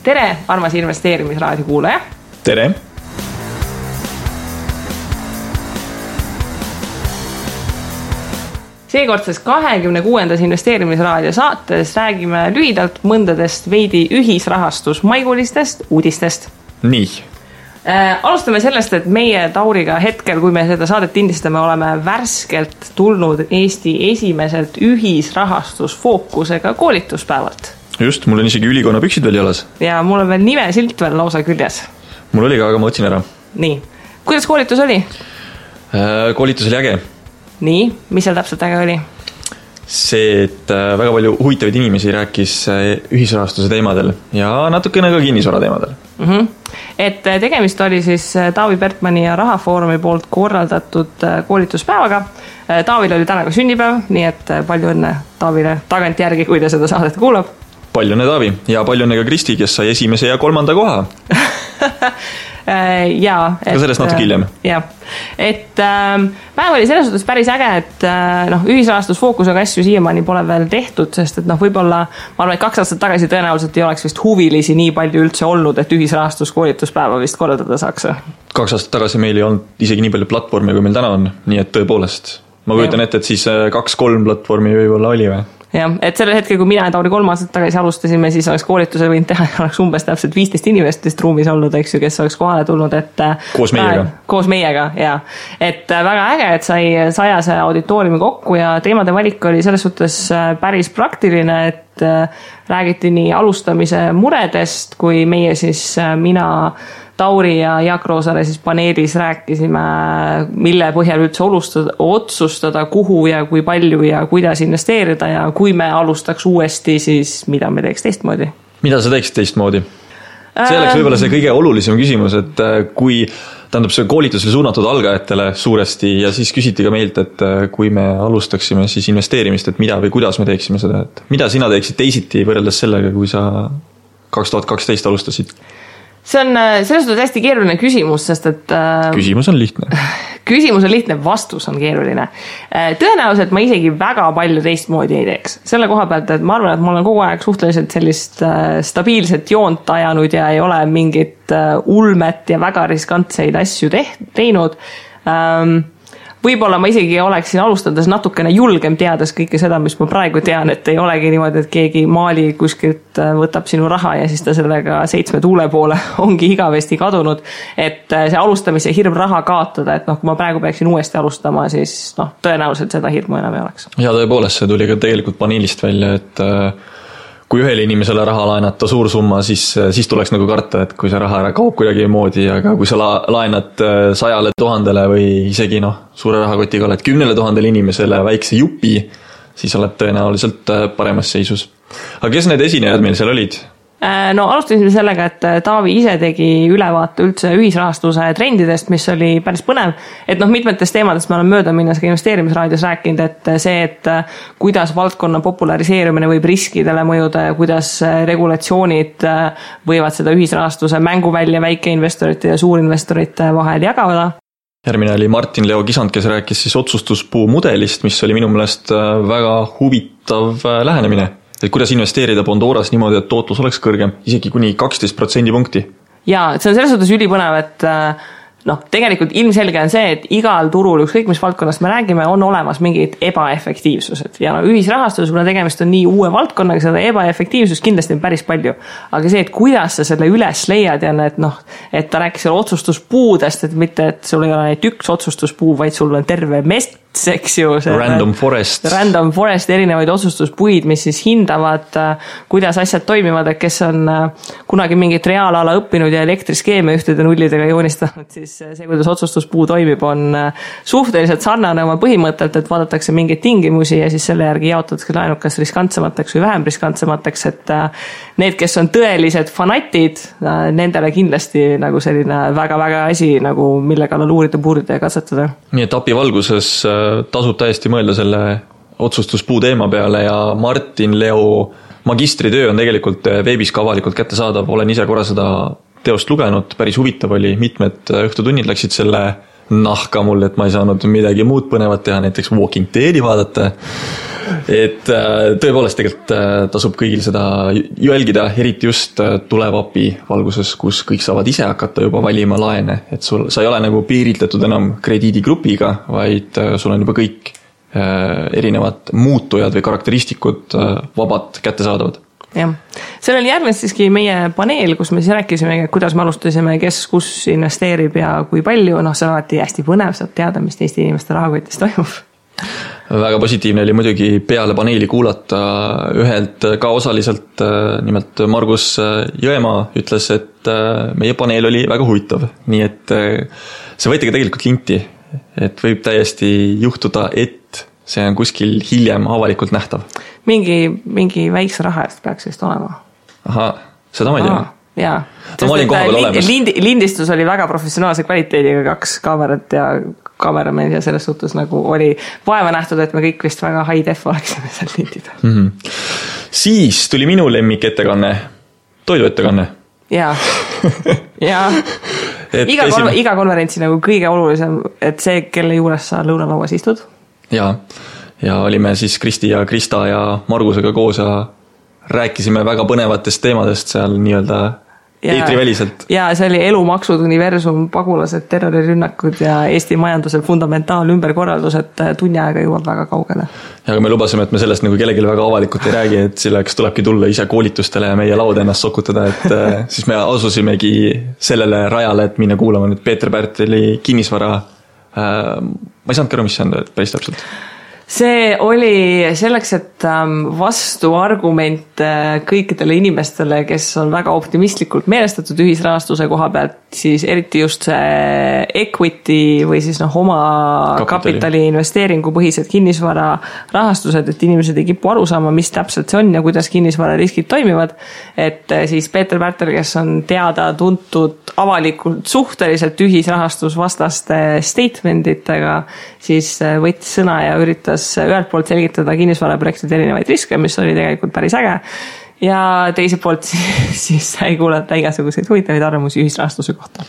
tere, armas investeerimisraadio kuulaja. Tere. Seekordses 26. investeerimisraadio saates räägime lühidalt mõndadest veidi ühisrahastusmaigulistest uudistest. Nii. Alustame sellest, et meie Tauriga hetkel, kui me seda saadet indistame, oleme värskelt tulnud Eesti esimeselt ühisrahastusfookusega koolituspäevalt. Just, mul on isegi ülikonna püksid veel jalas. Ja mul on veel nimesilt veel lausa küljes. Mul oli ka, aga ma otsin ära. Nii, kuidas koolitus oli? Koolitus oli äge. Nii, mis seal täpselt äge oli? See, et väga palju huvitavaid inimesi rääkis ühisrahastuse teemadel ja natukene ka kinnisvara teemadel. Et tegemist oli siis Taavi Pertmani ja Rahafoorumi poolt korraldatud koolituspäevaga. Taavil oli täna ka sünnipäev, nii et palju õnne Taavile tagant järgi, kui ta seda saadet kuulab. Palju õnne Taavi ja palju õnne ka Kristi, kes sai esimese ja 3. koha. Ka sellest natuke hiljem. Ja. Et päev oli selles suhtes päris äge, et ühisrahastusfookusega asju siiamaani pole veel tehtud, sest et võib-olla, ma arvan, et 2 aastat tagasi tõenäoliselt ei oleks vist huvilisi nii palju üldse olnud, et ühisrahastuskoolituspäeva vist korraldada saaks. 2 aastat tagasi meil ei olnud isegi nii palju platvormi, kui meil täna on, nii et tõepoolest. Ma kujutan ette, et siis 2-3 platvormi võib-olla oli või? Jah, et sellel hetkel, kui mina ja Tauri 3 aastat tagasi alustasime, siis oleks koolituse võinud teha, oleks umbes täpselt 15 inimestest ruumis olnud, eks ju, kes oleks kohale tulnud, et koos meiega, ja. Et väga äge, et sai 100 auditooriumi kokku ja teemade valik oli selles suhtes päris praktiline, et räägiti nii alustamise muredest, kui meie siis mina Tauri ja Jaak Roosaare siis paneelis rääkisime, mille põhjal üldse otsustada, kuhu ja kui palju ja kuidas investeerida ja kui me alustaks uuesti, siis mida me teeks teistmoodi? Mida sa teeksid teistmoodi? See oleks võib-olla see kõige olulisem küsimus, et kui see koolitus oli suunatud algajatele suuresti ja siis küsiti ka meilt, et kui me alustaksime siis investeerimist, et mida või kuidas me teeksime seda, et mida sina teeksid teisiti võrreldes sellega, kui sa 2012 alustasid? See on selles suhtes hästi keeruline küsimus, sest et Küsimus on lihtne. Küsimus on lihtne, vastus on keeruline. Tõenäoliselt ma isegi väga palju teistmoodi ei teeks. Selle koha pealt, et ma arvan, et ma olen kogu aeg suhteliselt sellist stabiilset joont ajanud ja ei ole mingit ulmet ja väga riskantseid asju teinud. Võib-olla ma isegi oleksin alustades natukene julgem teades kõike seda, mis ma praegu tean, et ei olegi niimoodi, et keegi maali kuskilt võtab sinu raha ja siis ta sellega 7 tuule poole ongi igavesti kadunud. Et see alustamise hirm raha kaotada, et kui ma praegu peaksin uuesti alustama, siis tõenäoliselt seda hirmu enam ei oleks. Ja tõepoolest, see tuli ka tegelikult paneelist välja, et kui ühele inimesele raha laenata suur summa, siis tuleks nagu karta, et kui see raha ära kaob kuidagi moodi, aga kui sa laenad 100 000 või isegi suure rahakotiga oled 10 000 inimesele väikse jupi, siis oled tõenäoliselt paremas seisus. Aga kes need esinejad meil seal olid? Alustasime sellega, et Taavi ise tegi ülevaate üldse ühisrahastuse trendidest, mis oli päris põnev, et mitmetest teemadest me oleme mööda minnes ka investeerimisraadios rääkinud, et see, et kuidas valdkonna populariseerumine võib riskidele mõjuda ja kuidas regulatsioonid võivad seda ühisrahastuse mänguvälja väikeinvestorite ja suurinvestorite vahel jagada. Järgmine oli Martin Leo Kisand, kes rääkis siis otsustuspuu mudelist, mis oli minu meelest väga huvitav lähenemine. Et kuidas investeerida Bondoras niimoodi, et tootlus oleks kõrgem, isegi kuni 12% punkti. Ja see on selles suhtes ülipõnev, et tegelikult ilmselge on see, et igal turul, ükskõik mis valdkonnast me räägime, on olemas mingid ebaefektiivsused. Ja ühisrahastus, kuna tegemist on nii uue valdkonnaga, seda ebaefektiivsust kindlasti on päris palju. Aga see, et kuidas sa selle üles leiad ja et ta rääkis selle otsustuspuudest, et mitte, et sul ei ole neid üks otsustuspuu, vaid sul on terve mest, eks ju. Random Forest, erinevaid otsustuspuid, mis siis hindavad, kuidas asjad toimivad, et kes on kunagi mingit reaalala õppinud ja elektriskeeme ühtede nullidega joonistanud, siis see, kuidas otsustuspuu toimib, on suhteliselt sarnane oma põhimõttelt, et vaadatakse mingeid tingimusi ja siis selle järgi jaotatakse laenud kas riskantsemateks või vähem riskantsemateks, et need, kes on tõelised fanatid, nendele kindlasti selline väga-väga asi, mille kallal uurida, puurida ja katsetada. Nii et API valguses tasub täiesti mõelda selle otsustuspuu teema peale ja Martin Leo magistritöö on tegelikult veebis ka avalikult kättesaadav, olen ise korra seda teost lugenud, päris huvitav oli, mitmed õhtutunnid läksid selle nahka mul, et ma ei saanud midagi muud põnevat teha, näiteks Walking Deadi vaadata. et tõepoolest tegelikult tasub kõigil seda jälgida, eriti just tulevapi valguses, kus kõik saavad ise hakata juba valima laene, et sa ei ole nagu piiritletud enam krediidigrupiga, vaid sul on juba kõik erinevad muutujad või karakteristikud vabalt kättesaadavad. Jah, sellel järgnes siiski meie paneel, kus me siis rääkisime, kuidas me alustasime, kes kus investeerib ja kui palju, see on alati hästi põnev, saab teada, mis teiste inimeste rahakotis toimub. Väga positiivne oli muidugi peale paneeli kuulata ühelt ka osaliselt, nimelt Margus Jõemaa ütles, et meie paneel oli väga huvitav, nii et see võeti ka tegelikult linti, et võib täiesti juhtuda, et see on kuskil hiljem avalikult nähtav. Mingi väikse raha eest peaks vist olema. Aha, seda ma ei tea. Jaa. No, ma olin koha peal olemas. Lindistus oli väga professionaalse kvaliteediga, 2 kaamerat ja kaameramees ja selles suhtes nagu oli vaeva nähtud, et me kõik vist väga high def oleksime seal lindida. Siis tuli minu lemmik ettekanne, toiduettekanne. Jaa. Iga konverentsi nagu kõige olulisem, et see, kelle juures sa lõunalauas istud. Ja olime siis Kristi ja Krista ja Margusega koos ja rääkisime väga põnevatest teemadest seal nii-öelda eetriväliselt. Ja see oli elumaksud, universum, pagulased, terrorirünnakud ja Eesti majanduse fundamentaal ümberkorraldus, et tunni aega jõuab väga kaugele. Ja aga me lubasime, et me sellest nagu kellelegi väga avalikult ei räägi, et selleks tulebki tulla ise koolitustele ja meie lauda ennast sokutada, et siis me asusimegi sellele rajale, et minna kuulama nüüd Peeter Pärteli kinnisvara. Ma ei saanud aru, mis see on päris täpselt. See oli selleks, et vastuargument kõikidele inimestele, kes on väga optimistlikult meelestatud ühisrahastuse koha pealt, siis eriti just see equity või siis oma kapitali investeeringu põhised kinnisvara rahastused, et inimesed ei kipu aru saama, mis täpselt see on ja kuidas kinnisvara riskid toimivad. Et siis Peeter Pärtel, kes on teada tuntud avalikult suhteliselt ühisrahastusvastaste statementitega, siis võttis sõna ja üritas ühelt poolt selgitada kinnisvaraprojektide erinevaid riske, mis oli tegelikult päris äge. Ja teiselt poolt siis sai kuulata igasuguseid huvitavaid arvamusi ühisrahastuse kohta.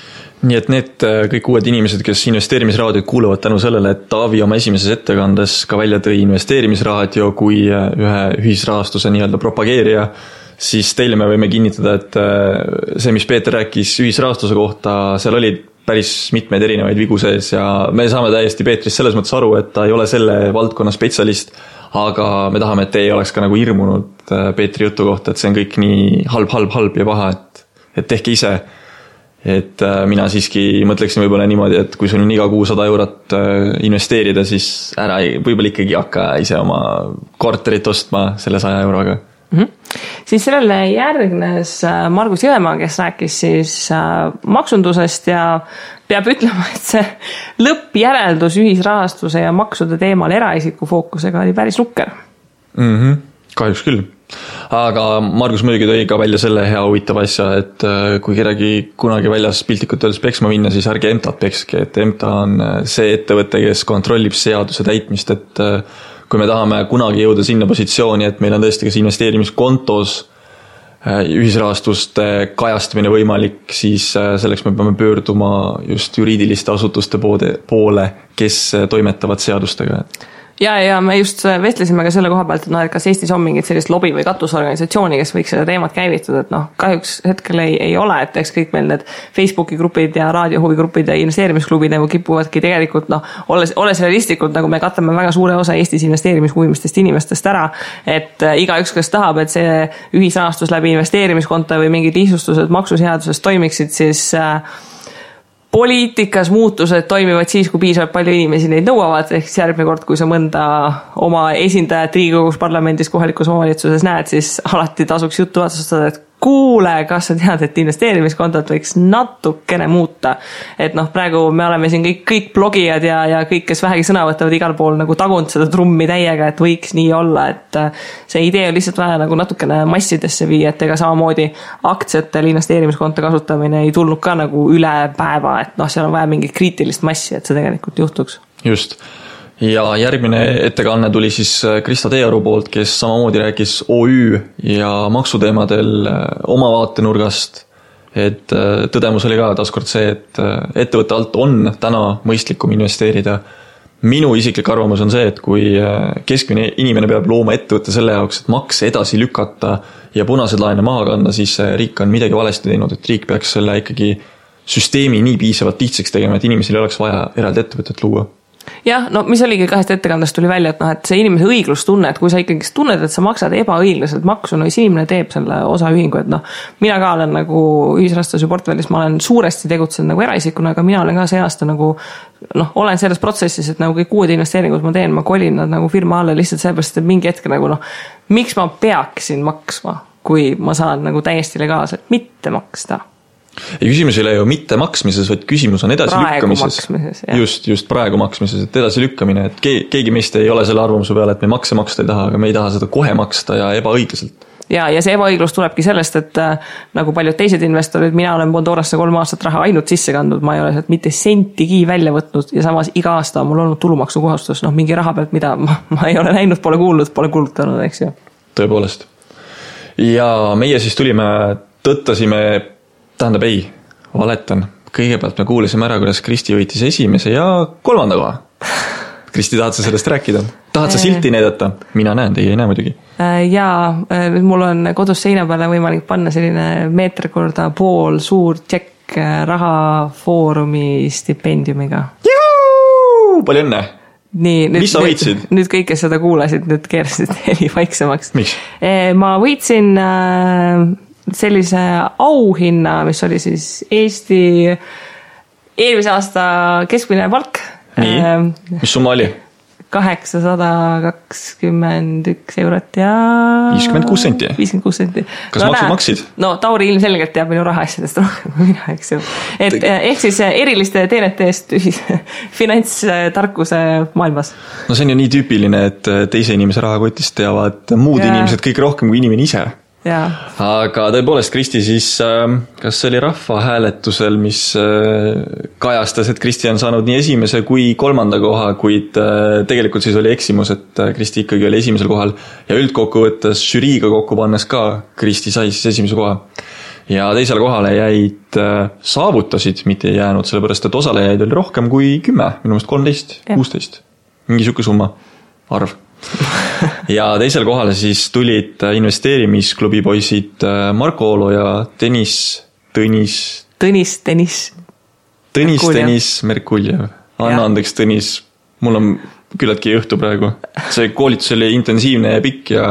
Nii et need kõik uued inimesed, kes investeerimisraadiot kuuluvad tänu sellele, et Taavi oma esimeses ettekandes ka välja tõi investeerimisraadio kui ühe ühisrahastuse nii-öelda propageerija, siis teile me võime kinnitada, et see, mis Peeter rääkis ühisrahastuse kohta, seal oli päris mitmeid erinevaid vigu sees ja me saame täiesti Peetrist selles mõttes aru, et ta ei ole selle valdkonna spetsialist, aga me tahame, et te ei oleks ka nagu hirmunud Peetri jutu kohta, et see on kõik nii halb ja paha, et tehke ise. Et mina siiski mõtleksin võib-olla niimoodi, et kui sul on iga kuu 100 eurot investeerida, siis ära võib-olla ikkagi hakka ise oma korterit ostma selle 100 euroga. Siis sellele järgnes Margus Jõemaa, kes rääkis siis maksundusest ja peab ütlema, et see lõppjäreldus ühisrahastuse ja maksude teemal eraisiku fookusega oli päris nukker. Kahjuks küll. Aga Margus muidugi tõi ka välja selle hea huvitava asja, et kui kedagi kunagi väljas piltlikult öeldes peksma minna, siis ärge EMTA-t pekske, et EMTA on see ettevõte, kes kontrollib seaduse täitmist, et kui me tahame kunagi jõuda sinna positsiooni, et meil on tõesti kas investeerimiskontos ühisrahastuste kajastamine võimalik, siis selleks me peame pöörduma just juriidiliste asutuste poole, kes toimetavad seadustega. Ja me just vestlesime ka selle koha pealt, et kas Eestis on mingit sellist lobi- või katusorganisatsiooni, kes võiks seda teemat käivitada, et kahjuks hetkel ei ole, et eks kõik meil need Facebooki grupid ja raadiohuvigrupid ja investeerimisklubid nagu kipuvadki tegelikult, olles realistlikult, nagu me katame väga suure osa Eestis investeerimishuvilistest inimestest ära, et igaüks, kes tahab, et see ühisrahastus läbi investeerimiskonto või mingid lihtsustused maksuseadusest toimiksid, siis poliitikas muutused toimivad siis, kui piisavalt palju inimesi neid nõuavad, ehk järgmine kord, kui sa mõnda oma esindajat Riigikogus, parlamendis, kohalikus omavalitsuses näed, siis alati tasuks juttu otsustada, et kuule, kas sa tead, et investeerimiskontot võiks natukene muuta. Et praegu me oleme siin kõik blogijad ja kõik, kes vähegi sõna võtavad igal pool nagu tagunud seda trummi täiega, et võiks nii olla, et see idee on lihtsalt vaja nagu natukene massidesse viia, et ega samamoodi aktsiatel investeerimiskonto kasutamine ei tulnud ka nagu üle päeva, et seal on vaja mingit kriitilist massi, et see tegelikult juhtuks. Just. Ja järgmine ettekanne tuli siis Krista Teearu poolt, kes samamoodi rääkis OÜ ja maksuteemadel oma vaatenurgast, et tõdemus oli ka taaskord see, et ettevõtte alt on täna mõistlikum investeerida minu isiklik arvamus on see, et kui keskmine inimene peab looma ettevõtte selle jaoks, et makse edasi lükata ja punased laene maha kanda, siis riik on midagi valesti teinud, et riik peaks selle ikkagi süsteemi nii piisavalt lihtsaks tegema, et inimesel ei oleks vaja eraldi ettevõtet luua. Jah, no mis oligi kahest ettekandest tuli välja, et, et see inimese õiglustunne, et kui sa ikkagi tunned, et sa maksad ebaõiglaselt maksu, no siis inimene teeb selle osaühingu, et mina ka olen nagu ühisrahastuse portfellis, ma olen suuresti tegutsenud nagu eraisikuna, aga mina olen ka see aasta nagu olen selles protsessis, et nagu kõik uued investeeringud ma teen, ma kolin nad nagu firma alla lihtsalt sellepärast, et mingi hetk nagu miks ma peaksin maksma, kui ma saan nagu täiesti legaalselt mitte maksta. Ja küsimus ei ole ju mitte maksmises, vaid küsimus on edasi lükkamises. Just praegu maksmises, et edasi lükkamine, et keegi meist ei ole selle arvamuse peale, et me makse maksta ei taha, aga me ei taha seda kohe maksta ja ebaõiglaselt. Ja see ebaõiglus tulebki sellest, et nagu paljud teised investorid, mina olen Bondorasse 3 aastat raha ainult sisse kandnud, ma ei ole sealt mitte sentigi välja võtnud ja samas iga aasta on mul olnud tulumaksu kohustus, mingi raha pealt, mida ma ei ole näinud, pole kuulnud, pole kulutanud, eks ju. Tõepoolest. Ja meie siis tulime, tõttasime tähendab ei, valetan. Kõigepealt me kuulisime ära, kuidas Kristi võitis esimese ja 3. koha. Kristi, tahad sa sellest rääkida? Tahad sa silti näidata? Mina näen, teie ei näe muidugi. Jaa, mul on kodus seina peale võimalik panna selline meeter/pool suur tšekk rahafoorumi stipendiumiga. Juhu! Palju õnne! Nii, mis sa võitsid? Nüüd kõik, kes seda kuulasid, nüüd keerasid heli vaiksemaks. Miks? Ma võitsin sellise auhinna, mis oli siis Eesti eelmise aasta keskmine palk. Nii, mis summa oli? 821 eurot ja 56 senti. 56 senti. Kas maksud maksid? No Tauri ilmselgelt teab minu rahaasjadest rohkem kui mina, eks ju. Ehk siis eriliste teenete eest finantstarkuse maailmas. No see on ju nii tüüpiline, et teise inimese rahakotist teavad muud inimesed kõik rohkem kui inimene ise. Ja. Aga tõepoolest Kristi siis, kas see oli rahvahääletusel, mis kajastas, et Kristi on saanud nii esimese kui 3. koha, kuid tegelikult siis oli eksimus, et Kristi ikkagi oli esimesel kohal ja üldkokkuvõttes žüriiga kokku pannes ka Kristi sai siis esimese koha. Ja teisele kohale jäid saavutasid, mitte ei jäänud, sellepärast, et osalejaid oli rohkem kui 10, minu meelest 13, 16. Mingi siuke summa, arv. Ja teisel kohale siis tulid investeerimisklubi poisid Marko Oolo ja Tõnis Merkuljev. Anna andeks, Tõnis, mul on küllaltki õhtu praegu. See koolitus oli intensiivne ja pikk ja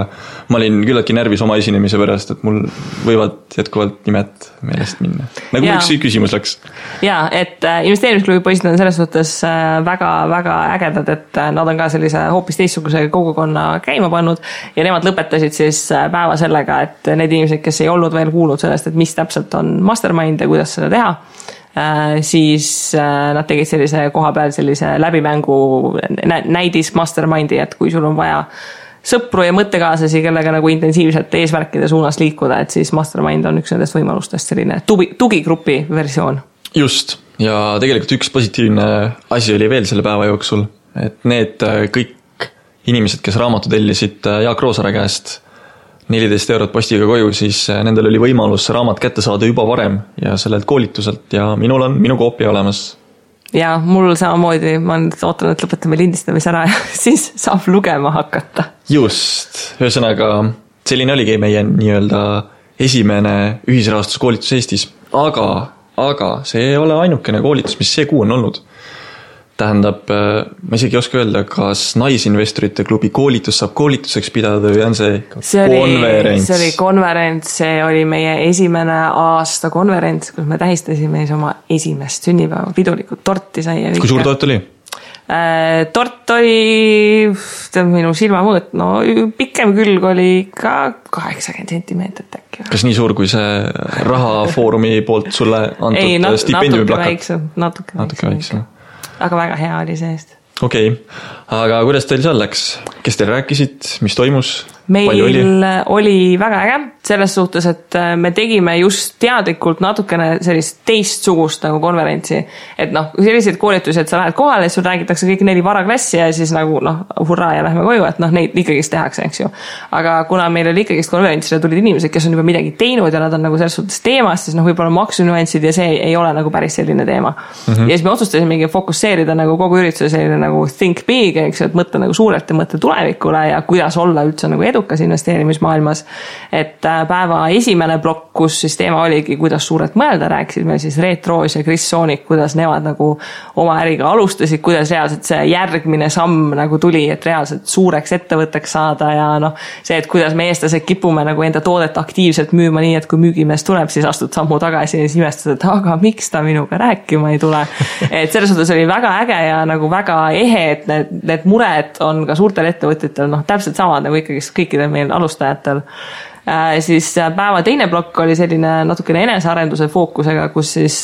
ma olin küllaltki närvis oma esinemise pärast, et mul võivad jätkuvalt nimed meelest minna. Nagu üks küsimus läks. Jaa, et investeerimisklubi poisid on selles suhtes väga ägedad, et nad on ka sellise hoopis teistsuguse kogukonna käima pannud ja nemad lõpetasid siis päeva sellega, et need inimesed, kes ei olnud veel kuulnud sellest, et mis täpselt on mastermind ja kuidas seda teha, siis nad tegid sellise koha peal sellise läbimängu näidis mastermindi, et kui sul on vaja sõpru ja mõttekaaslasi, kellega nagu intensiivselt eesmärkide suunas liikuda, et siis mastermind on üks nendest võimalustest selline tugigrupi versioon. Just, ja tegelikult üks positiivne asi oli veel selle päeva jooksul, et need kõik inimesed, kes raamatu tellisid Jaak Roosaare käest 14 eurot postiga koju, siis nendel oli võimalus raamat kätte saada juba varem ja sellelt koolituselt ja minul on minu koopia olemas. Ja mul samamoodi, ma nüüd ootan, et lõpetame lindistamise ära ja siis saab lugema hakata. Just, ühesõnaga selline oligi meie nii-öelda esimene ühisrahastuskoolitus Eestis, aga see ei ole ainukene koolitus, mis see kuu on olnud. Tähendab, ma isegi ei oska öelda, kas naisinvestorite klubi koolitus saab koolituseks pidada või on see konverents? See oli konverents, see oli meie esimene aasta konverents, kus me tähistasime oma esimest sünnipäeva, pidulikult torti sai. Kui suur tort oli? Tort oli minu silmamõõt, no pikem külg oli ka 80 sentimeetrit äkki. Kas nii suur kui see rahafoorumi poolt sulle antud stipendiumi plakat? Natuke väiksem. Aga väga hea oli see eest. Okei, aga kuidas teil seal läks? Kes teil rääkisid? Mis toimus? meil oli väga äge selles suhtes, et me tegime just teadlikult natukene sellist teistsugust nagu konverentsi. Et noh, selliseid koolitusi, et sa lähed kohale ja sul räägitakse kõik 4 varaklassi ja siis nagu hurraa ja lähme koju, et neid ikkagist tehakse, eks ju. Aga kuna meil oli ikkagist konverentsile tulid inimesed, kes on juba midagi teinud ja nad on nagu selles suhtes teemas, siis võib-olla maksunüansid ja see ei ole nagu päris selline teema. Ja siis me otsustasimegi fokusseerida nagu kogu ürituse selline nagu think big, eks ju, et mõtle nagu suurelt ja mõtle tulevikule ja kuidas olla üldse nagu edukas investeerimismaailmas. Et päeva esimene plokk, kus siis teema oligi, kuidas suurelt mõelda, rääkisid meil siis Reet Roos ja Chris Soonik, kuidas nemad nagu oma äriga alustasid, kuidas reaalselt see järgmine samm nagu tuli, et reaalselt suureks ettevõtteks saada ja see, et kuidas me eestlased kipume nagu enda toodet aktiivselt müüma nii, et kui müügimees tuleb, siis astud sammu tagasi ja siis imestad, et aga miks ta minuga rääkima ei tule. Et selles suhtes oli väga äge ja nagu väga ehe, et need mured on ka suurtel ettevõtjatel täpselt samad nagu ikkagi kõikidel meil alustajatel. Siis päeva teine plokk oli selline natukene enesearenduse fookusega, kus siis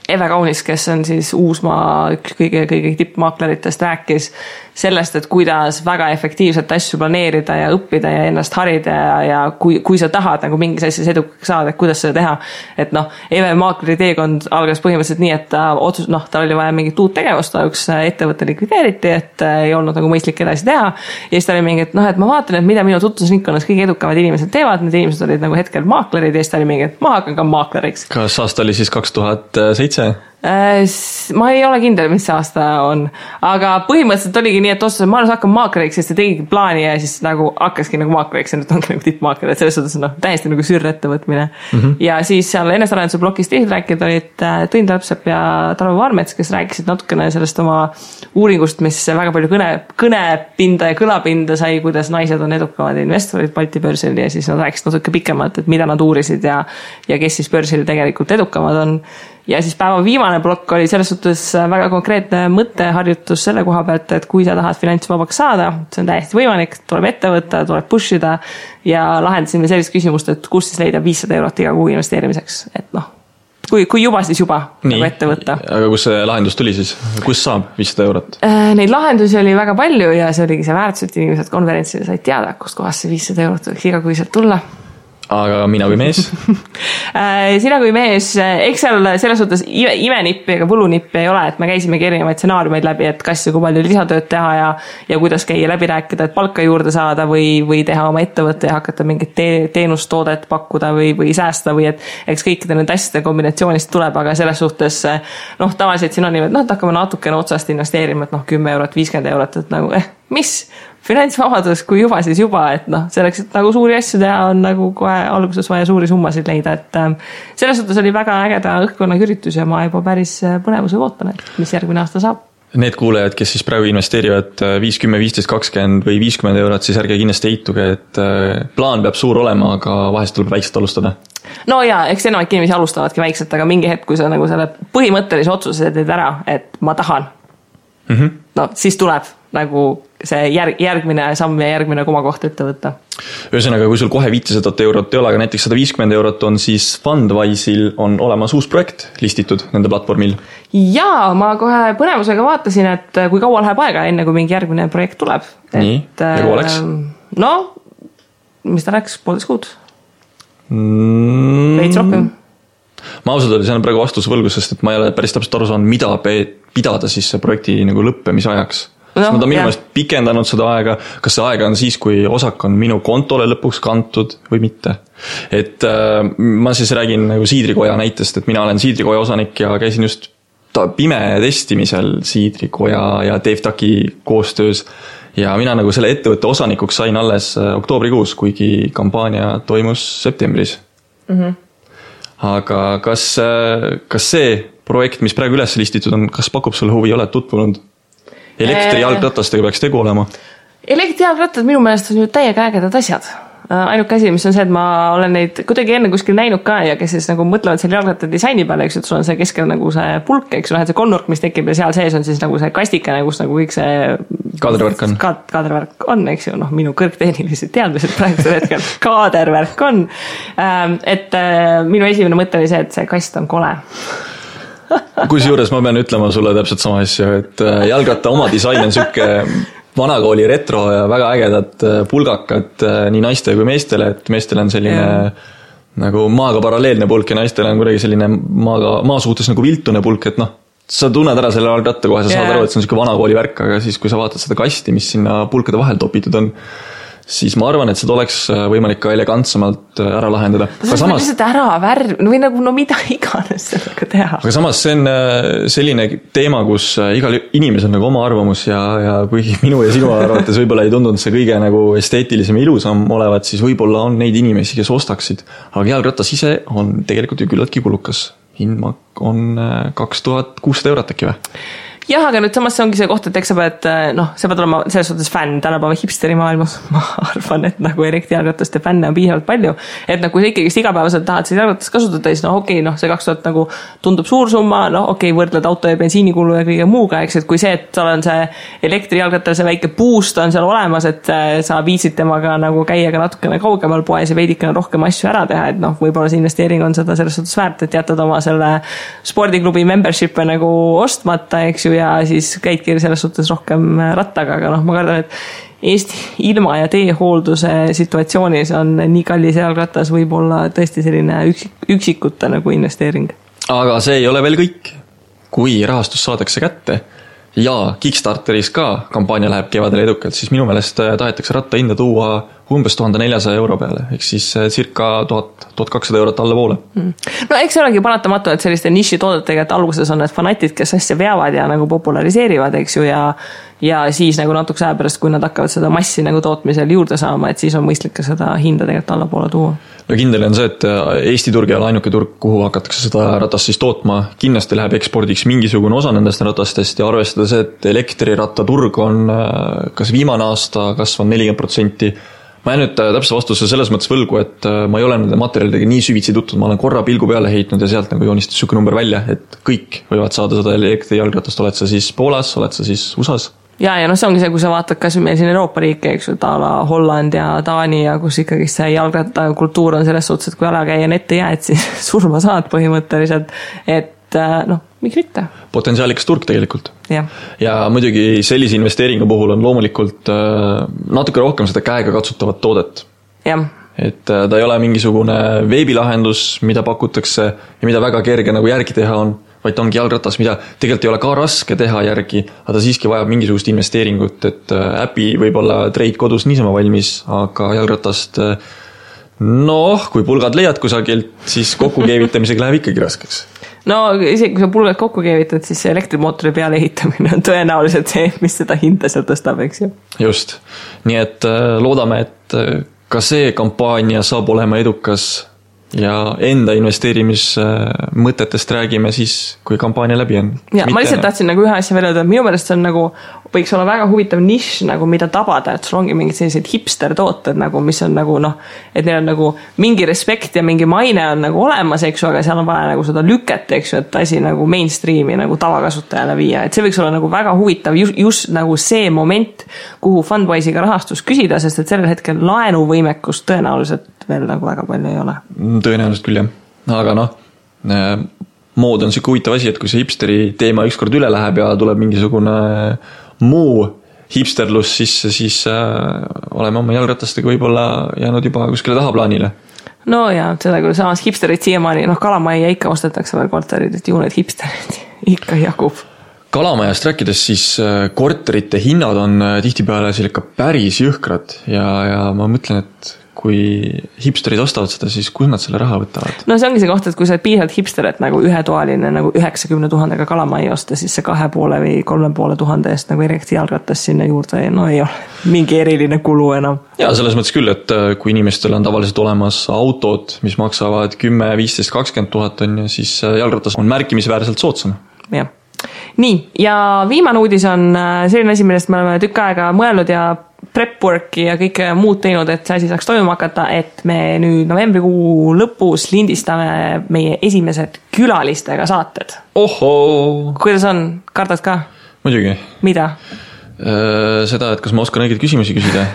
Eve Kaunis, kes on siis Uusmaa üks kõige tippmaakleritest, rääkis sellest, et kuidas väga efektiivselt asju planeerida ja õppida ja ennast harida ja kui sa tahad nagu mingis asjas edukaks saada, et kuidas seda teha. Et Eve maakleri teekond algas põhimõtteliselt nii, et tal oli vaja mingit uut tegevust, üks ettevõtte likvideeriti, et ei olnud nagu mõistlik edasi teha. Ja siis ta oli mingi, et ma vaatan, et mida minu tutvusringkonnas kõige edukamad inimesed teevad, need inimesed olid nagu hetkel maaklerid ja siis ta oli mingi, et ma hakkan ka maakleriks. Kas aasta oli siis 2007? Ma ei ole kindel, mis see aasta on, aga põhimõtteliselt oligi nii, et otsustasin, ma hakkan maakleriks, sest ta tegigi plaani ja siis nagu hakkaski nagu maakleriks ja nüüd ongi nagu tippmaakler, et selles suhtes täiesti nagu sürrettevõtmine. Ja siis seal enesarenduse blokis teised rääkid olid Tõin Talpsepp ja Tarvo Vaarmets, kes rääkisid natukene sellest oma uuringust, mis väga palju kõnepinda ja kõlapinda sai, kuidas naised on edukamad investorid Balti börsil ja siis nad rääkisid natuke pikemalt, et mida nad uurisid ja kes siis börsil tegelikult edukamad on. Ja siis päeva viimane plokk oli selles suhtes väga konkreetne mõtteharjutus selle koha pealt, et kui sa tahad finantsvabaks saada, see on täiesti võimalik, tuleb ette võtta, tuleb pushida ja lahendasime sellist küsimust, et kus siis leida 500 eurot iga kuu investeerimiseks, et kui juba, siis juba nagu ette võtta. Aga kus see lahendus tuli siis? Kus saab 500 eurot? Neid lahendusi oli väga palju ja see oligi see väärtus, et inimesed konverentsile said teada, kust kohast see 500 eurot võiks iga kuiselt tulla. Aga mina kui mees? Sina kui mees, eks seal selles suhtes imenippi ega võlunippi ei ole, et me käisimegi erinevaid stsenaariumeid läbi, et kas ja kui palju lisatööd teha ja kuidas käia läbi rääkida, et palka juurde saada või teha oma ettevõtte ja hakata mingit teenustoodet pakkuda või säästa või et eks kõikide need asjade kombinatsioonist tuleb, aga selles suhtes tavaliselt siin on nii, et hakkame natukene otsast investeerima, et 10 eurot, 50 eurot, et nagu mis? Finantsvabadus, kui juba, siis juba, et selleks, et nagu suuri asju teha, on nagu kohe alguses vaja suuri summasid leida, et selles suhtes oli väga ägeda õhkkonna üritus ja ma juba päris põnevuse ootan, et mis järgmine aasta saab. Need kuulejad, kes siis praegu investeerivad 5, 10, 15, 20 või 50 eurot, siis ärge kindlasti eituge, et plaan peab suur olema, aga vahest tuleb väikselt alustada. No jaa, eks enamik inimesi alustavadki väikselt, aga mingi hetk, kui sa nagu selle põhimõttelise otsuse teed ära, et ma tahan, siis tuleb nagu see järgmine samm ja järgmine komakoht ette võtta. Ühesõnaga, kui sul kohe 500 eurot ei ole, aga näiteks 150 eurot on, siis Fundwise'il on olemas uus projekt listitud nende platvormil. Jaa, ma kohe põnevusega vaatasin, et kui kaua läheb aega enne, kui mingi järgmine projekt tuleb. Nii, ja kaua läks? Mis ta läks? 1,5 kuud? Veits rohkem? Ma ausalt oli, see on praegu vastusvõlgus, sest et ma ei ole päris täpselt aru saanud, mida pidada siis see projekti nagu lõppemise ajaks. Nad on minu meelest pikendanud seda aega, kas see aega on siis, kui osak on minu kontole lõpuks kantud või mitte. Et ma siis räägin nagu Siidrikoja näitest, et mina olen Siidrikoja osanik ja käisin just pime testimisel Siidrikoja ja Dave Taki koostöös ja mina nagu selle ettevõtte osanikuks sain alles oktoobrikuus, kuigi kampaania toimus septembris. Aga kas see projekt, mis praegu üles listitud on, kas pakub sulle huvi, oled tutvunud? Elektrijalgratastega peaks tegu olema? Elektrijalgrattad minu meelest on ju täiega ägedad asjad. Ainuke asi, mis on see, et ma olen neid kuidagi enne kuskil näinud ka ja kes siis nagu mõtlevad selle jalgratta disaini peale, eks, et sul on see keskel nagu see pulk, eks, see konnurk, mis tekib ja seal sees on siis nagu see kastikene, kus nagu kõik see kaadervärk on, eks ju, minu kõrgtehnilised teadmised praegusel hetkel kaadervärk on, et minu esimene mõte oli see, et see kast on kole. Kusjuures ma pean ütlema sulle täpselt sama asja, et jalgratta oma disain on sükke vanakooli retro ja väga ägedad pulgakad nii naiste kui meestele, et meestele on selline nagu maaga paralleelne pulk ja naistele on kuidagi selline maa suhtes nagu viltune pulk, et noh, sa tunned ära selle algratta kohe, sa saad aru, et see on selline vanakooli värk, aga siis kui sa vaatad seda kasti, mis sinna pulkade vahel topitud on, siis ma arvan, et seda oleks võimalik ka elegantsemalt ära lahendada. Aga samas lihtsalt ära värv või nagu no mida iganes sellega teha. Aga samas see on selline teema, kus igal inimesel nagu oma arvamus ja kuigi minu ja sinu arvates võib-olla ei tundunud see kõige nagu esteetilisem ja ilusam olevat, siis võib-olla on neid inimesi, kes ostaksid. Aga jalgratas ise on tegelikult ju küllaltki kulukas. Hind on 2600 eurot äkki või? Jah, aga nüüd samas see ongi see koht, et eks sa pead, sa pead olema selles suhtes fänn tänapäeva hipsteri maailmas. Ma arvan, et nagu elektrijalgrataste fänne on piisavalt palju. Et kui sa ikkagi igapäevaselt tahad seda jalgratast kasutada, siis see 2000 nagu tundub suur summa, võrdled auto ja bensiinikulu ja kõige muuga, eks, et kui see, et seal on see elektrijalgratal, see väike boost on seal olemas, et sa viisid temaga nagu käia ka natukene kaugemal poes ja veidikene rohkem asju ära teha, et võib-olla see investeering on seda selles suhtes väärt, et jätad oma selle spordiklubi membership'e nagu ostmata, eks ju, ja siis käidki selles suhtes rohkem rattaga, aga ma kardan, et Eesti ilma- ja teehoolduse situatsioonis on nii kallis jalgratas võib-olla tõesti selline üksikute nagu investeering. Aga see ei ole veel kõik. Kui rahastus saadakse kätte ja Kickstarteris ka kampaania läheb kevadel edukalt, siis minu meelest tahetakse ratta hinda tuua umbes 1400 euro peale, ehk siis circa 1200 eurot alla poole. No eks see olegi paratamatu, et selliste niši toodetega, et alguses on need fanatid, kes asja veavad ja nagu populariseerivad, eks ju, ja siis nagu natuke aja pärast, kui nad hakkavad seda massi nagu tootmisel juurde saama, et siis on mõistlik ka seda hinda tegelikult alla poole tuua. No kindel on see, et Eesti turg ei ole ainuke turg, kuhu hakatakse seda ratast siis tootma. Kindlasti läheb ekspordiks mingisugune osa nendest ratastest ja arvestada see, et elektrirattaturg on kas viimane aasta kasvanud 40%. Ma jään nüüd täpse vastuse selles mõttes võlgu, et ma ei ole nende materjalidega nii süvitsi tuttud, ma olen korra pilgu peale heitnud ja sealt nagu joonistas süke number välja, et kõik võivad saada seda elektrijalgratast, oled sa siis Poolas, oled sa siis USAs. Ja see ongi see, kui sa vaatad kas meil siin Euroopa riike, eks ju, Taala, Holland ja Taani ja kus ikkagi see jalgratta kultuur on selles suhtes, et kui alakäija ette jääd, siis surma saad põhimõtteliselt, et miks mitte? Potentsiaalikas turg tegelikult. Ja muidugi sellise investeeringu puhul on loomulikult natuke rohkem seda käega katsutavat toodet. Et ta ei ole mingisugune veebilahendus, mida pakutakse ja mida väga kerge nagu järgi teha on, vaid ta ongi jalgratas, mida tegelikult ei ole ka raske teha järgi, aga ta siiski vajab mingisugust investeeringut, et äpi võib-olla treid kodus niisama valmis, aga jalgratast kui pulgad leiad kusagilt, siis kokkukeevitamisega läheb ikkagi raskeks. Isegi kui sa pulgad kokku keevitad, siis see elektrimootori peale ehitamine on tõenäoliselt see, mis seda hinda seal tõstab, eks ju. Just. Nii et loodame, et ka see kampaania saab olema edukas ja enda investeerimismõtetest räägime siis, kui kampaania läbi on. Ja ma lihtsalt tahtsin nagu ühe asja veel öelda, et minu meelest see on nagu, võiks olla väga huvitav nišš, nagu mida tabada, et sul ongi mingid sellised hipster tooted, nagu, mis on nagu et neil on nagu mingi respekt ja mingi maine on nagu olemas, eks ju, aga seal on vaja nagu seda lüket, eks ju, et asi nagu mainstreami nagu tavakasutajale viia, et see võiks olla nagu väga huvitav just nagu see moment, kuhu Fundwise'iga rahastus küsida, sest et sellel hetkel laenuvõimekust tõenäoliselt veel nagu väga palju ei ole. Tõenäoliselt küll, jah. Aga mood on siuke huvitav asi, et kui see hipsteri teema ükskord üle läheb ja tuleb mingisugune muu hipsterlus sisse, siis oleme oma jalgratastega võib-olla jäänud juba kuskile tahaplaanile. Ja, seda küll samas hipsterid siiamaani, Kalamajja ikka ostetakse veel korterid, et ju need hipsterid ikka jagub. Kalamajast rääkides, siis korterite hinnad on tihtipeale ikka päris jõhkrad ja ma mõtlen, et kui hipsterid ostavad seda, siis kus nad selle raha võtavad? See ongi see koht, et kui sa oled piisavalt hipster, et nagu ühetoaline nagu 90 000 Kalamaja osta, siis see 2,5 või 3,5 tuhande eest nagu erikti jalgratas sinna juurde, ei ole mingi eriline kulu enam. Ja selles mõttes küll, et kui inimestel on tavaliselt olemas autod, mis maksavad 10, 15, 20 000 on, siis jalgratas on märkimisväärselt soodsam. Jah. Nii, ja viimane uudis on selline asi, millest me oleme tükk aega mõelnud ja prep-worki ja kõike muud teinud, et see asi saaks toimuma hakata, et me nüüd novembrikuu lõpus lindistame meie esimesed külalistega saated. Ohoo! Kuidas on? Kardad ka? Muidugi. Mida? Seda, et kas ma oskan õigeid küsimusi küsida.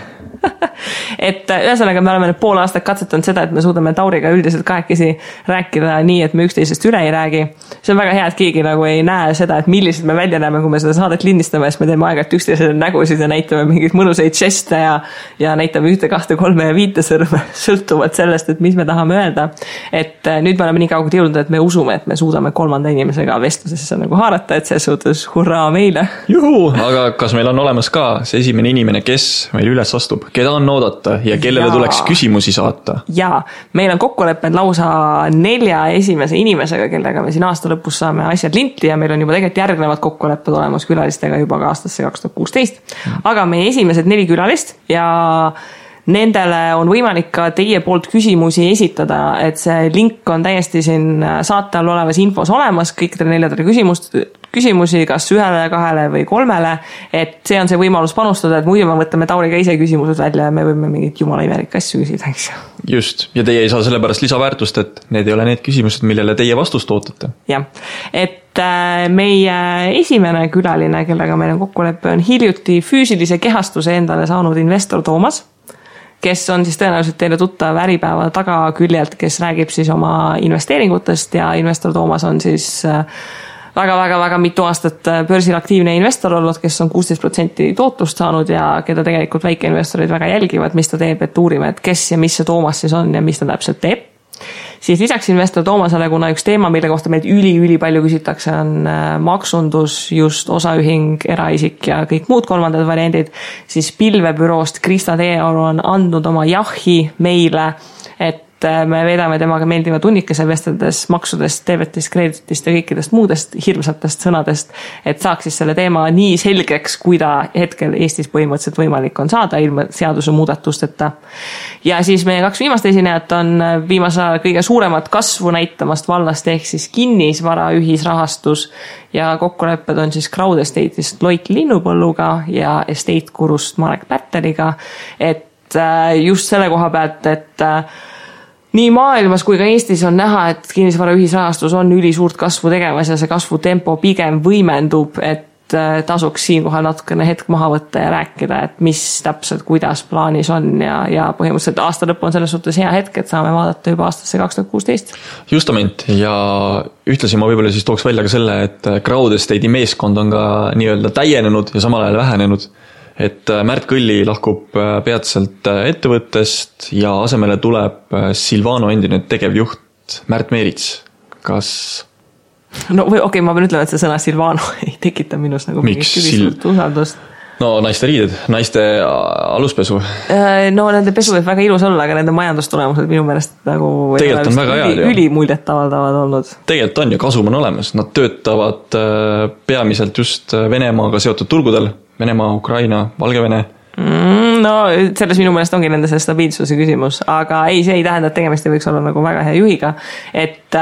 Et ühesõnaga me oleme nüüd pool aastat katsetanud seda, et me suudame Tauriga üldiselt kahekesi rääkida nii, et me üksteisest üle ei räägi. see on väga hea, et keegi nagu ei näe seda, et millised me välja näeme, kui me seda saadet lindistame, siis me teeme aeg-ajalt üksteisele nägusid ja näitame mingeid mõnusaid žeste ja näitame 1, 2, 3 ja 5 sõrme sõltuvalt sellest, et mis me tahame öelda. Et nüüd me oleme nii kaugelt jõudnud, et me usume, et me suudame 3. inimesega vestlusesse nagu haarata, et see suhtes hurraa meile. Juhu, aga kas meil on olemas ka see esimene inimene, kes meil üles astub, keda on oodata ja kellele tuleks küsimusi saata? Jaa, meil on kokkulepped lausa 4 esimese inimesega, kellega me siin aasta lõpus saame asjad linti ja meil on juba tegelikult järgnevad kokkulepped olemas külalistega juba ka aastasse 2016. Aga meie esimesed 4 külalist ja nendele on võimalik ka teie poolt küsimusi esitada, et see link on täiesti siin saate all olevas infos olemas, kõikidele 4 küsimusi, kas 1, 2 või 3, et see on see võimalus panustada, et muidu me võtame Tauriga ise küsimused välja ja me võime mingit jumala imelik asju küsida, eks. Just, ja teie ei saa sellepärast lisaväärtust, et need ei ole need küsimused, millele teie vastust ootate. Jah, et meie esimene külaline, kellega meil on kokkulepe, on hiljuti füüsilise kehastuse endale saanud investor Toomas, kes on siis tõenäoliselt teile tuttav Äripäeva tagaküljelt, kes räägib siis oma investeeringutest ja investor Toomas on siis väga mitu aastat börsil aktiivne investor olnud, kes on 16% tootlust saanud ja keda tegelikult väikeinvestorid väga jälgivad, mis ta teeb, et uurime, et kes ja mis see Toomas siis on ja mis ta täpselt teeb. Siis lisaks investor Toomasele, kuna üks teema, mille kohta meilt üli palju küsitakse, on maksundus, just osaühing, eraisik ja kõik muud 3. variandid, siis pilvebüroost Krista Teeoru on andnud oma jahi meile, et me veedame temaga meeldiva tunnikese vesteldes maksudest, teevetist, kreeditist ja kõikidest muudest hirmsatest sõnadest, et saaks siis selle teema nii selgeks, kui ta hetkel Eestis põhimõtteliselt võimalik on saada ilma seaduse muudatusteta. Ja siis meie 2 viimast esinejat on viimase kõige suuremat kasvu näitamast vallast ehk siis kinnisvara ühisrahastus ja kokkulepped on siis Crowd Estate'ist Loik Linnupõlluga ja Estate Gurust Marek Pärteliga, et just selle koha pealt, et nii maailmas kui ka Eestis on näha, et kinnisvara ühisrahastus on ülisuurt kasvu tegemas ja see kasvutempo pigem võimendub, et tasuks siinkohal natukene hetk maha võtta ja rääkida, et mis täpselt, kuidas plaanis on ja põhimõtteliselt aasta lõpp on selles suhtes hea hetk, et saame vaadata juba aastasse 2016. Justament ja ühtlasi ma võib-olla siis tooks välja ka selle, et Crowd Estate'i meeskond on ka nii-öelda täienenud ja samal ajal vähenenud. Et Märt Kõlli lahkub peatselt ettevõttest ja asemele tuleb Silvano endine tegevjuht Märt Meerits. Kas? No okei, ma pean ütlema, et see sõna Silvano ei tekita minus nagu mingit usaldust. No naiste riided, naiste aluspesu. No nende pesu võib väga ilus olla, aga nende majandustulemused minu meelest nagu tegelikult on väga hea. Ülimuljet avaldavad olnud. Tegelikult on ja kasum on olemas. Nad töötavad peamiselt just Venemaaga seotud turgudel. Venemaa, Ukraina, Valgevene. No selles minu meelest ongi nende see stabiilsuse küsimus, aga ei, see ei tähenda, et tegemist ei võiks olla nagu väga hea juhiga, et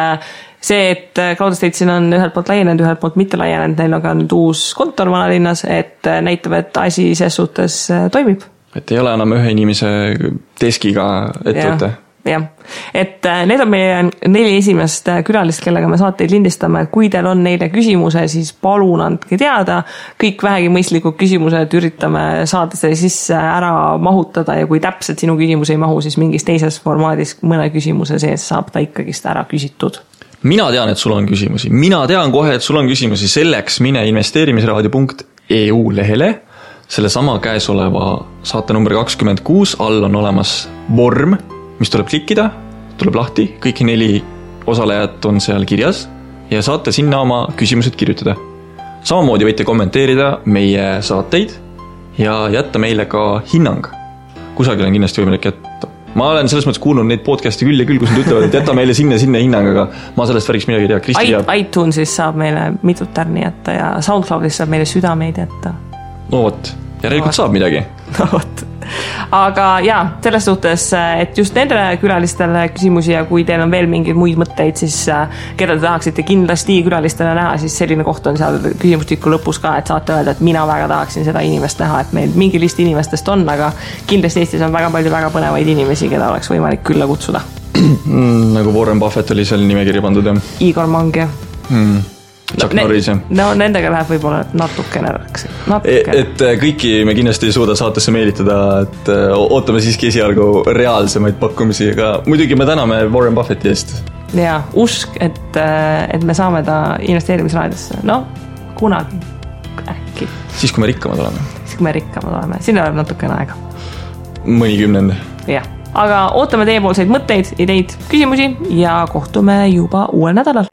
see, et Crowd Estate siin on ühelt poolt laienenud, ühelt poolt mitte laienenud, neil on ka nüüd uus kontor vanalinnas, et näitab, et asi ses suhtes toimib. Et ei ole enam ühe inimese deskiga ettevõte. Jah, et need on meie 4 esimest külalist, kellega me saateid lindistame, et kui teil on neile küsimuse, siis palun andke teada, kõik vähegi mõistlikud küsimused üritame saada see sisse ära mahutada ja kui täpselt sinu küsimus ei mahu, siis mingis teises formaadis mõne küsimuse sees saab ta ikkagist ära küsitud. Mina tean, et sul on küsimusi, mina tean kohe, et sul on küsimusi, selleks mine investeerimisraadio.eu lehele, selle sama käesoleva saate number 26, all on olemas vorm, mis tuleb klikkida, tuleb lahti, kõik 4 osalejat on seal kirjas ja saate sinna oma küsimused kirjutada. Samamoodi võite kommenteerida meie saateid ja jätta meile ka hinnang. Kusagil on kindlasti võimalik jätta. Ma olen selles mõttes kuulnud neid podcasti küll ja küll, kus nad ütlevad, et jätta meile sinna hinnang, aga ma sellest värgiks midagi ei tea. iTunesis saab meile mitut tärni jätta ja SoundCloudis saab meile südameid jätta. No vot, järelikult saab midagi. No vot. Aga jaa, selles suhtes, et just nendele külalistele küsimusi ja kui teil on veel mingeid muid mõtteid, siis keda te tahaksite kindlasti külalistele näha, siis selline koht on seal küsimustiku lõpus ka, et saate öelda, et mina väga tahaksin seda inimest näha, et meil mingi list inimestest on, aga kindlasti Eestis on väga palju väga põnevaid inimesi, keda oleks võimalik külla kutsuda. Nagu Warren Buffett oli seal nimekirja pandud, jah? Igor Mang, jah. Chuck Norris, jah. No nendega läheb võib-olla natukene. Et kõiki me kindlasti ei suuda saatesse meelitada, et ootame siiski esialgu reaalsemaid pakkumisi, aga muidugi me täname Warren Buffetti eest. ja usk, et me saame ta investeerimisraadiosse. No, kunagi äkki. Siis, kui me rikkamad oleme. Siin oleb natukene aega. Mõni 10. Jah, aga ootame teiepoolseid mõtteid, ideid, küsimusi ja kohtume juba uuel nädalal.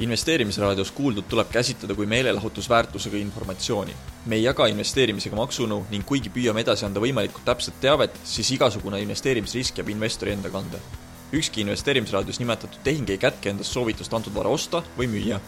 Investeerimisraadios kuuldud tuleb käsitleda kui meelelahutusväärtusega informatsiooni. Me ei jaga investeerimisega maksunõu ning kuigi püüame edasi anda võimalikult täpset teavet, siis igasugune investeerimisrisk jääb investori enda kanda. Ükski investeerimisraadios nimetatud tehing ei kätke endast soovitust antud vara osta või müüa.